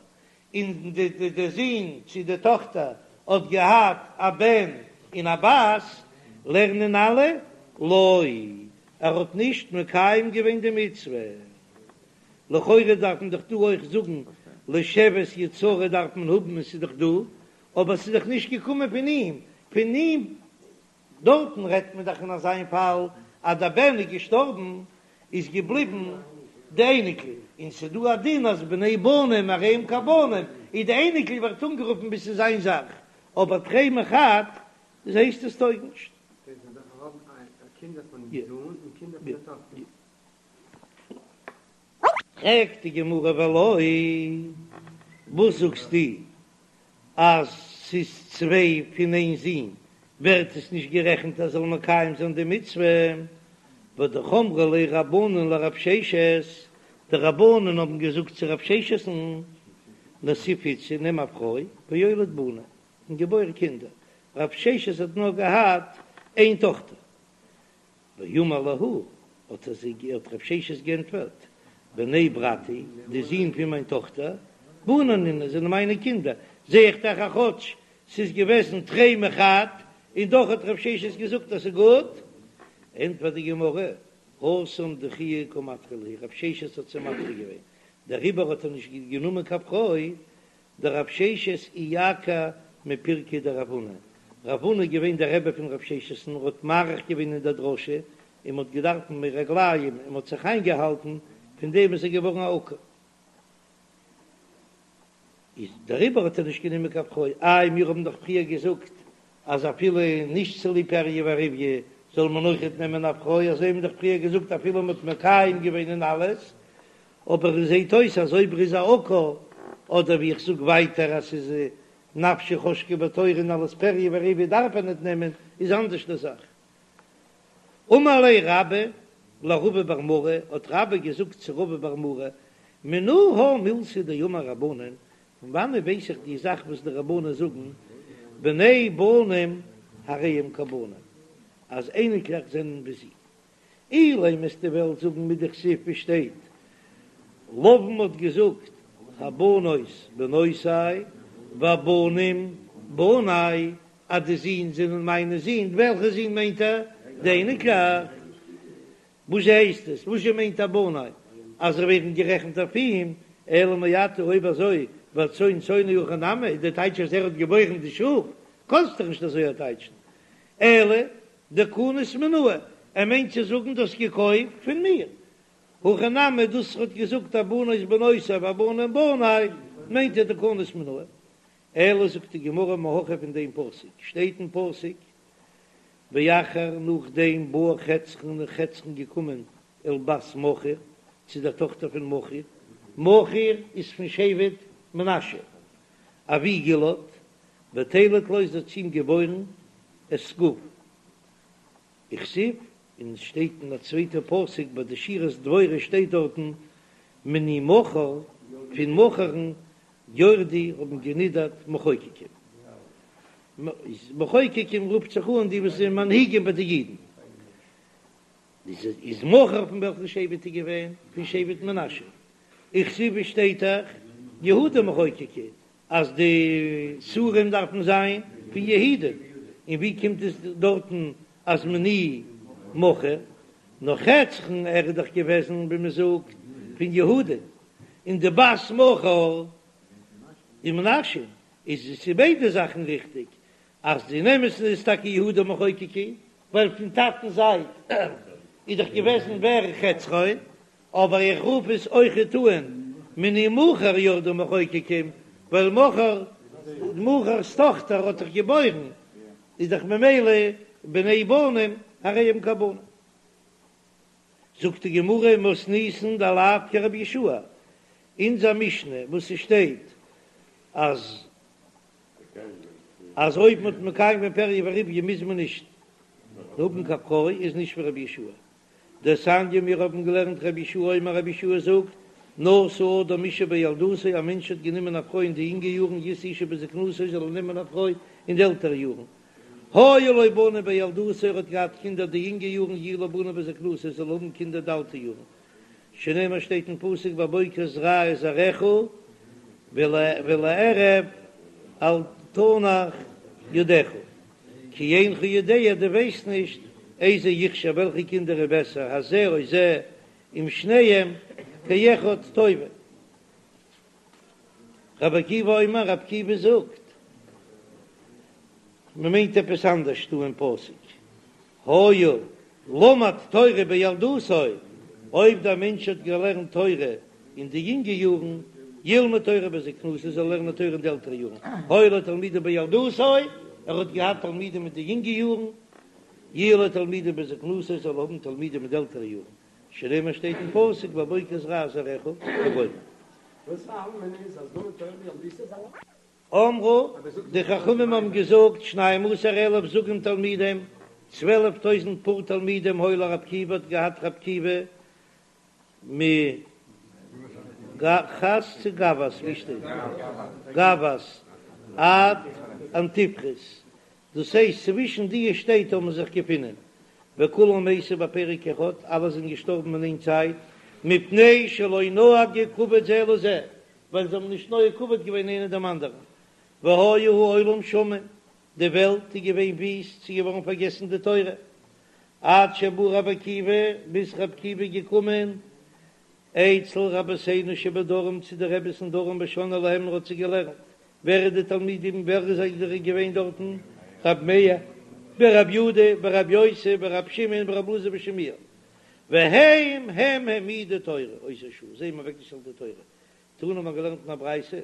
און די זון צו די טאכטער האט געהאט א בן און א בת, לערנען אלע לא, ער האט נישט מקיים געווען די מצוה. לכאורה דארף מען דאך דא אויך זאגן לשבת יצרה דארף מען האבן און ס'איז דאך דא, אבער ס'איז דאך נישט געקומען פון אים, פון אים דארטן רעדט מען דאך אין אזיין פאל אז דער בן איז געשטארבן איז געבליבן די אייניקל, און ס'איז דא א דין אז בני בנים הרי הם כבנים, איז די אייניקל ווערט אנגערופן ווי ס'איז זיין זאך, אבער תרי מחד דאס הייסט עס טויג נישט. פרעגט די גמרא ולא, וואס זאגסטו אז ס'איז צוויי פון איין זון ווערט עס נישט גערעכנט אז זאל מקיים זיין די מצוה? והא אמרי ליה רבנן לרב ששת, די רבנן האבן געזאגט צו רב ששת'ן, נסיב איתתא נעם א פרוי ואוליד בני און געבויר קינדער, רב ששת האט נאר געהאט איין טאכטער, ואמר להו, האט ער זיי האט רב ששת גענטפערט, בני ברתי, די זין פון מיין טאכטער, בני נינהו, זענען מיינע קינדער, זע איך דאך אז כאטש ס'איז געוועזן תרי מחד, און דאך האט רב ששת געזאגט אז ס'איז גוט, ענטפערט די גמרא, התם דחויי קא מדחי להו, רב ששת האט זיי מדחה געווען, דעריבער האט ער נישט גענומען קיין פרוי, דרב ששת איעקר מפירקיה דרב הונא, רב הונא איז געווען דער רבי פון רב ששת און ער האט מאריך געווען אין דער דרשה, און מ'האט געדארפט מי רגליים און מ'האט זיך איינגעהאלטן, פון דעם איז ער געווארן א עקר. איז דעריבער האט ער נישט גענומען קיין פרוי, איי מיר האבן דאך פריער געזאגט אז אפילו נישט צוליב פריה ורביה זאל מען אויכעט נעמען א פרוי, אזוי האבן מיר דאך פריער געזאגט אפילו מ'האט מקיים געווען און אלעס, אבער עס זעט אויס אז אויב ער איז א עקר, אדער ווי איך זאג ווייטער אז ס'איז נפשו חשקה בתורה און אלס פריה ורביה דארף ער ניט נעמען, איז אנדערש די זאך. אמר ליה רבה לרבא בר מרי, האט רבה געזאגט צו רבא בר מרי, מנא הא מילתא דאמור רבנן, פון וואנעט ווייס איך די זאך וואס די רבנן זאגן, בני בנים הרי הם כבנים, אז אייניקלעך זענען ווי זין. אילימא וועסטו וועלן זאגן מדכתיב ווי שטייט לבן האט געזאגט הבנות בנותי והבנים בני אז די זין זענען מיינע זין, וועלכע זין מיינט ער? די אייניקלעך. וואס הייסט עס? וואס מיינט ער בני? אז זיי ווערן גערעכנט אויף אים? אלא מעתה אויב אזוי והצאן צאנו הכי נמי איז די טייטש אז ער האט געבוירן די שאף, קאנסט דאך נישט אזוי טייטשן, אלא דקנית מינאי, ער מיינט צו זאגן דו האסט געקויפט פון מיר, הכי נמי דאס ער האט געזאגט הבנות בנותי והבנים בני מיינט ער דקנית מינאי, אלא זאגט די גמרא מהכא פון דעם פסוק שטייט אין פסוק ואחר נאכדעם בא חצרון איז חצרון געקומען אל בת מכיר צו דער טאכטער פון מכיר, מכיר איז פון שבט מנשה אבי גלעד, ותלד לו זי האט צו אים געבוירן את סגוב. וכתיב, און עס שטייט אין א צווייטע פסוק ביי די שירת דבורה שטייט דארטן מני מכיר פון מכיר'ן ירדו האבן גענידערט מחוקקים. מחוקקים רופט זיך אן די וואס זענען מנהיגים ביי די אידן. איז מכיר פון וועלכן שבט איז געווען? פון שבט מנשה. וכתיב שטייט דאך יהודה מחוקקי אז די שרים דארפן זיין פון יהודה, און ווי קומט עס דארטן אז מני מכיר? נאר חצרון ער איז דאך געוועזן ווי מען זאגט פון יהודה, און די בת מכיר איז מנשה, איז עס איז ביידע זאכן ריכטיג, אז אין אמת'ן איז טאקע יהודה מחוקקי, ווייל פון טאטנ'ס זייט איז דאך געוועזן ווער חצרון, אבער איך רוף עס אויכעט אן מני מכיר ירדו מחוקקים, ווייל מכיר, מכיר'ס טאכטער האט דאך געבוירן, איז דאך ממילא בני בנים הרי הם כבנים. זאגט די גמרא מתניתין דלאו כרבי יהושע, אונזער משנה וואס ס'שטייט אז אז אויב מ'האט מקיים געווען פריה ורביה מוז מען נישט האבן קיין פרוי איז נישט ווי רבי יהושע. דתניא מיר האבן געלערנט רבי יהושע אומר רבי יהושע זאגט, נשא אדם אשה בילדותו א מענטש האט גענומען א פרוי אין די יונגע יארן ישא אשה בזקנותו זאל ער נעמען א פרוי אין די עלטערע יארן, היו לו בנים בילדותו ער האט געהאט קינדער די יונגע יארן יהיו לו בנים בזקנותו זאל ער האבן קינדער די אלטע יארן, שנאמר שטייט אין פסוק בבוקר זרע את זרעך ולערב אל תנח ידך, כי אינך יודע דו ווייסט נישט איזה יכשר וועלכע קינדער איז בעסער הזה או זה, אם שניהם כאחד טובים. רבי עקיבא אומר, רבי עקיבא זאגט, מען מיינט עפעס אנדערש דא אין פסוק, היה למד תורה בילדותו, אויב דער מענטש האט געלערנט תורה אין די יונגע יארן, ילמד תורה בזקנותו, זאל ער לערנען תורה אין די עלטערע יארן, היו לו תלמידים בילדותו, ער האט געהאט תלמידים אין די יונגע יארן, יהיו לו תלמידים בזקנותו, זאל ער האבן תלמידים אין די עלטערע יארן, שנאמר שטייט אין פסוק בבוקר זרע זרעך וגומר. אמרו, די חכמים האבן געזאגט, שנים עשר אלף זוגים תלמידים, 12 טויזנט פאר תלמידים היו לרבי עקיבא האט געהאט רבי עקיבא מגחת צו גבת, ווי שטייט גבת עד אנטיפרס, דאס הייסט צווישן די שטעט האבן זיך געפונען, וכולם מתו בפרק אחד, אלע זענען געשטארבן אין איין צייט, מפני שלא נהגו כבוד זה לזה, ווייל זיי האבן נישט נוהג כבוד געווען איינער דעם אנדערן, והיה העולם שמם, די וועלט איז געווען וויסט, ס'איז געווארן פארגעסן די תורה, עד שבא רבי עקיבא, ביז רבי עקיבא איז געקומען, אצל רבותינו שבדרום צו די רביס אין דרום ושנאה להם און האט זיי געלערנט, ווער איז די תלמידים ווער איז זיי געווען דארטן, רבי מאיר ורבי יהודה ורבי יוסי ורבי שמעון ורבי אלעזר בן שמוע, והם הם העמידו תורה אותה שעה, זיי האבן אוועקגעשטעלט די תורה, תנא האט מען געלערנט אין א ברייתא,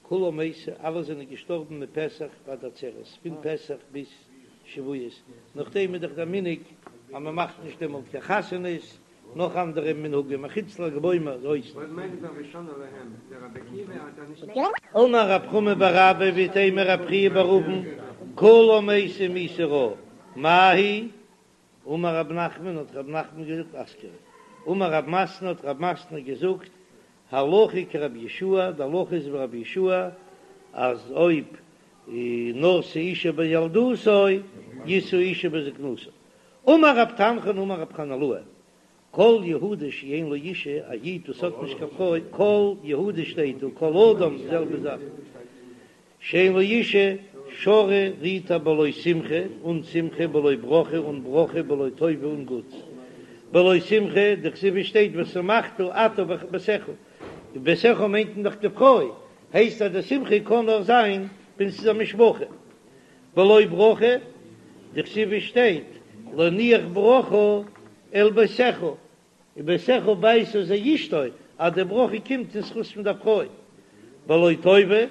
כולם מתו, אלע זענען געשטארבן מפסח ועד עצרת, פון פסח ביז שבועות, נאכדעם איז דאך דער מנהג אז מען מאכט נישט דעמאלט קיין חתונות, נאך אנדערע מנהגים אחוץ ל"ג בעומר אויס. אמר רב חמא בר אבא ואיתימא רב חייא בר אבין, כולם מתו מיתה רעה, מאי היא? אמר רב נחמן האט רב נחמן געזאגט אסכרה. אמר רב מתנא האט רב מתנא געזאגט הלכה כרבי יהושע, די הלכה איז ווי רבי יהושע אז אויב נשא אשה בילדותו ישא אשה בזקנותו. אמר רב תנחום אמר רב חנילאי כל יהודי שאין לו אישה, א איד וואס האט נישט קיין פרוי, כל יהודי שטייט דא, כל אדם די זעלבע זאך, שאין לו אישה, שרי רוט ער בלא שמחה, אן שמחה, בלא ברכה, אן ברכה, בלא טובה, אן גוטס. בלא שמחה, דכתיב שטייט ושמחת אתה וביתך. ביתך מיינט מען דאך די פרוי, הייסט אז די שמחה קען נאר זיין ווען ס'איז א משפחה. בלא ברכה, דכתיב שטייט להניח ברכה אל ביתך, און ביתך ביתה זו אשתו, אז די ברכה קומט אין זכות פון דער פרוי. בלא טובה,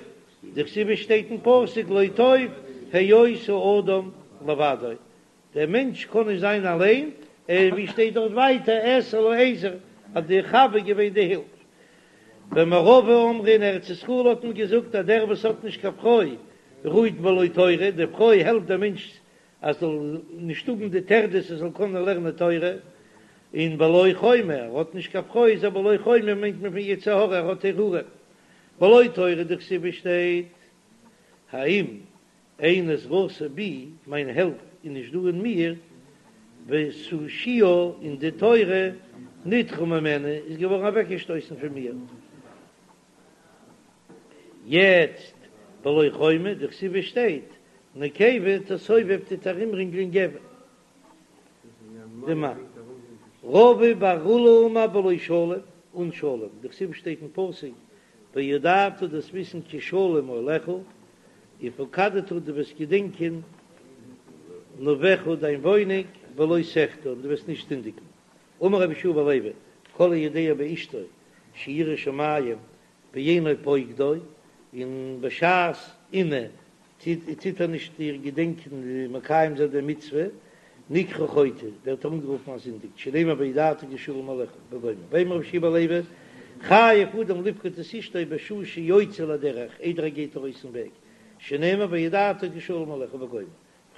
דכתיב שטייט אין פסוק לא טוב היות האדם לבדו, דער מענטש קען נישט זיין אליין, און ווי שטייט דארט ווייטער אעשה לו עזר, אז די חוה איז געווען די הילף. במערבא אמרי אין ארץ ישראל האט מען געזאגט אז דער וואס האט נישט קיין פרוי רוהט בלא תורה, די פרוי העלפט דעם מענטש אז זאל נישט האבן די טרדות ער זאל קענען לערנען תורה, און בלא חומה, ער האט נישט קיין פרוי איז ער בלא חומה מיינט מען פון יצר הרע ער האט הרהורים, בלא תורה דכתיב שטייט האם אין עזרתי בי, מיין העלפ איז נישט דא אין מיר, ותושיה און די תורה נדחה ממני איז געווארן אוועקגעשטויסן פון מיר. יעצט בלא חומה, דכתיב שטייט, נקבה תסובב טוט ארומרינגלען גבר, די מאן. רבא בר עולא אמר בלא שלום, אן שלום, דכתיב שטייט אין פסוק, וידעת דו'סט וויסן כי שלום אהלך, ופקדת דו וועסט געדענקען נווך דיין וואוינונג ולא תחטא און דו וועסט נישט זינדיגן. אמר רבי יהושע בן לוי, כל היודע באשתו שהיא יראת שמים ואינו פוקדה, און בשעת עינוי טוט ער נישט איר געדענקען און מקיים זיין די מצוה, נקרא חוטא, ווערט ער אנגערופן א זינדיג, שנאמר וידעת כי שלום אהלך וגומר, ואמר רבי יהושע בן לוי, חייב אדם לפקוד את אשתו בשעה שיוצא לדרך, איידער ער גייט ארויס אין וועג, שנאמר וידעת כי שלום אהלך וגומר.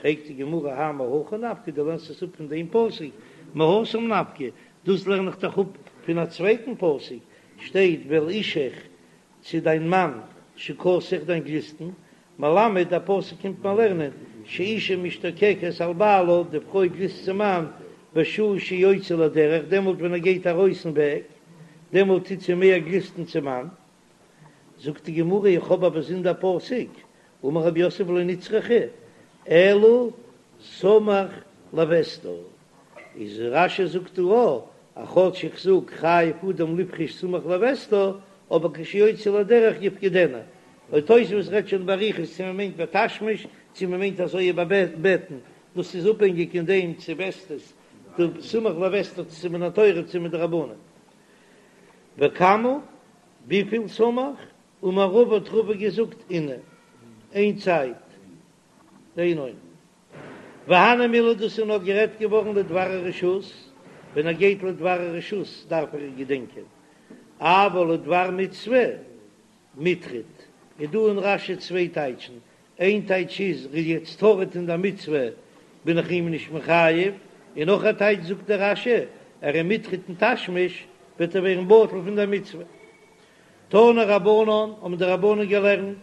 פרעגט די גמרא האי מהכא נפקא, דו לערנסט עס אפ פון דעם פסוק, מהתם נפקא, דאס לערן איך דאך אפ פון א צווייטן פסוק, שטייט ואל אישך צו דיין מאן תשוקתך דיין גליסטן, מלמד דער פסוק קומט מיר לערנען שאישה משתוקקת על בעלה, די פרוי גליסט צום מאן בשעה שיוצא לדרך, דעמאלט ווען ער גייט ארויס אין וועג, דעמאלט טוט זי מער גליסטן צום מאן. זאגט די גמרא איך האב א באזונדער פסוק, אמר רב יוסף לא נצרכה אלא סמוך לוסתה, איז רש"י זאגט דא א אז כאטש איך זאג חייב אדם לפרוש סמוך לוסתה, אבער כשיוצא לדרך יפקדנה, און תוספות רעדט שוין באריכות צו מען מיינט בתשמיש צו מען מיינט אזוי איבערבעטן, דאס איז אפהענגיק אין דעם צו וסתות די סמוך לוסתה צו מן התורה צו מדרבנן. וכמה, וויפיל סמוך? אמר רבא האט רבא געזאגט עינא, איין צייט, איין עונה. והני מילי דאס איז נאר גערעדט געווארן לדבר הרשות, ווען ער גייט לדבר הרשות דארף ער געדענקען, אבל לדבר מצוה מיטריד, איז דא אין רש"י צוויי טייטשן, איין טייטש איז ער איז יעצט טרוד אין דער מצוה בין איך אים נישט מחייב, און נאך א טייטש זאגט דער רש"י ער איז מיטריד אין תשמיש וועט ער ווערן בטל פון דער מצוה. תנו רבנן האבן די רבנן געלערנט,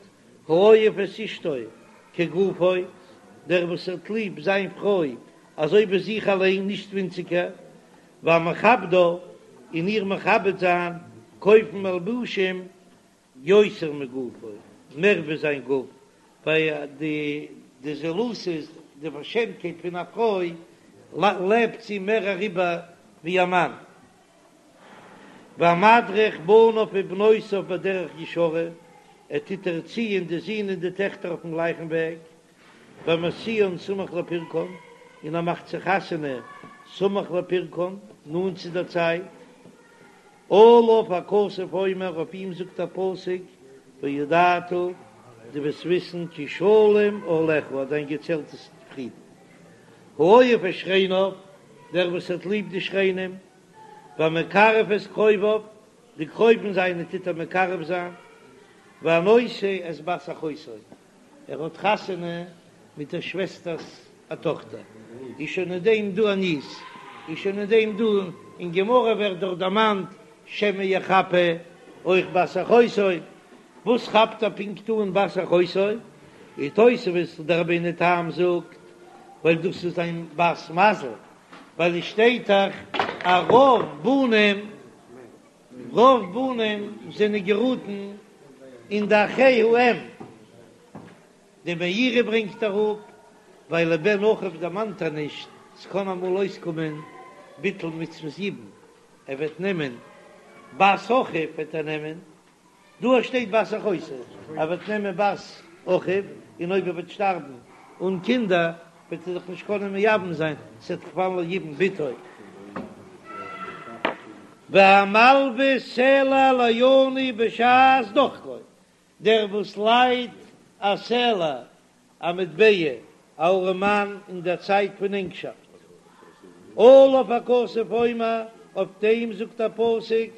האוהב את אשתו כגופו, דער וואס האט ליב זיין פרוי אזוי ווי זיך אליין נישט ווינציגער, והמכבדה און איר מכבד זיין, קויפן מלבושים יותר מגופו, מער ווי זיין גוף, ווייל די די זילות איז די פארשעמטקייט פון א פרוי לעבט זי מער אריבער ווי א מאן. והמדריך בניו ובנותיו בדרך ישרה, ער טוט ערציען די זין און די טעכטער אויפן גלייכן וועג, והמשיאן סמוך לפרקן, און ער מאכט זיי חתונה סמוך לפרקן, נאנט צו דער צייט. עליו הכתוב אומר, אויף אים זאגט א פסוק, וידעת, דו וועסט וויסן, כי שלום אהלך, אז דיין געצעלט איז פרידן. האוהב את שכניו, דער וואס האט ליב די שכנים, והמקרב את קרוביו, די קרובים זיינע טוט ער מקרב זיין, והנושא את בת אחותו, ער האט חתונה מיט דער שוועסטער'ס א טאכטער, איז שוין אין דעם דא א ניס, איז שוין אין דעם דא, אין גמרא ווערט דאך דערמאנט שמא יחפה אויך בת אחותו, וואס כאפט ער פונקט אן בת אחותו? איז תוספות דער רבינו תם זאגט ווייל דאס איז זיין בת מזל, ווייל עס שטייט דאך אז רוב בנים רוב בנים זענען געראטן אין די אחי האם, די מאירי ברענגט אראפ ווייל לבן אחיו דערמאנט ער נישט, ס'קען אמאל אויסקומען ביטול מצוות יבום, ער וועט נעמען. בת אחיו וועט ער נעמען, דא שטייט בת אחותו, ער וועט נעמען בת אחיו, און אויב ער וועט שטארבן אן קינדער וועט ער זיך נישט קענען מייבם זיין, ס'וועט דאך פאלן ליבום בתו. והמלוה סלע לעני בשעת דחקו, דער וואס לייט א סלע א מטבע א ארעמאן אין דער צייט פון ענגשאפט. עליו הכתוב אומר, אויף דעם זאגט א פסוק,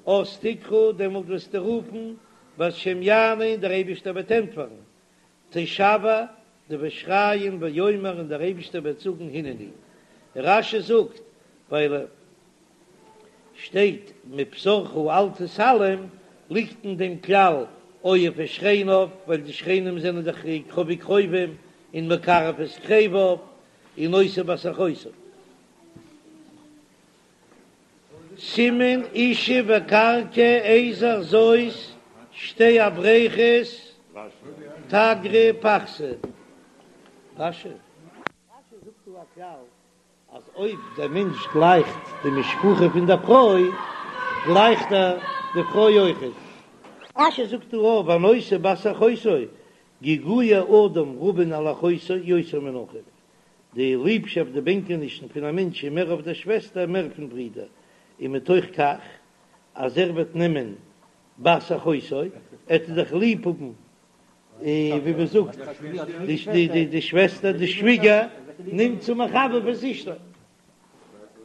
אז תקרא, דעמאלט וועסטו רופן, והשם יענה, און דער אייבישטער וועט ענטפערן, תשוע, דו וועסט שרייען ויאמר, און דער אייבישטער וועט זאגן הנני. רש"י זאגט, ווייל שטייט מבשרך אל תתעלם, ליגט אין דעם כלל אוהב את שכניו, ווייל די שכנים זענען דאך קרובי קרובים, און מקרב את קרוביו, און נושא בת אחותו. סימן אשה וקרקע עזר זאת שתי הבריכות תגרי פחתי. רש"י זאגט דא א כלל אז אויב דער מענטש גלייכט די משפחה פון דער פרוי, גלייכט ער די פרוי אויכעט. רש"י זאגט דא אויף והנושא בת אחותו, געגועי אדם רבין על אחותו יותר מן אחיו, די ליבשאפט די בענקענישן פון א מענטש איז מער אויף דער שוועסטער מער פון ברודער, און מתוך כך אז ער וועט נעמען בת אחותו, עט ער דאך ליב האבן ווי מען זאגט די שוועסטער די שוויגער נמצא מחבב את אשתו.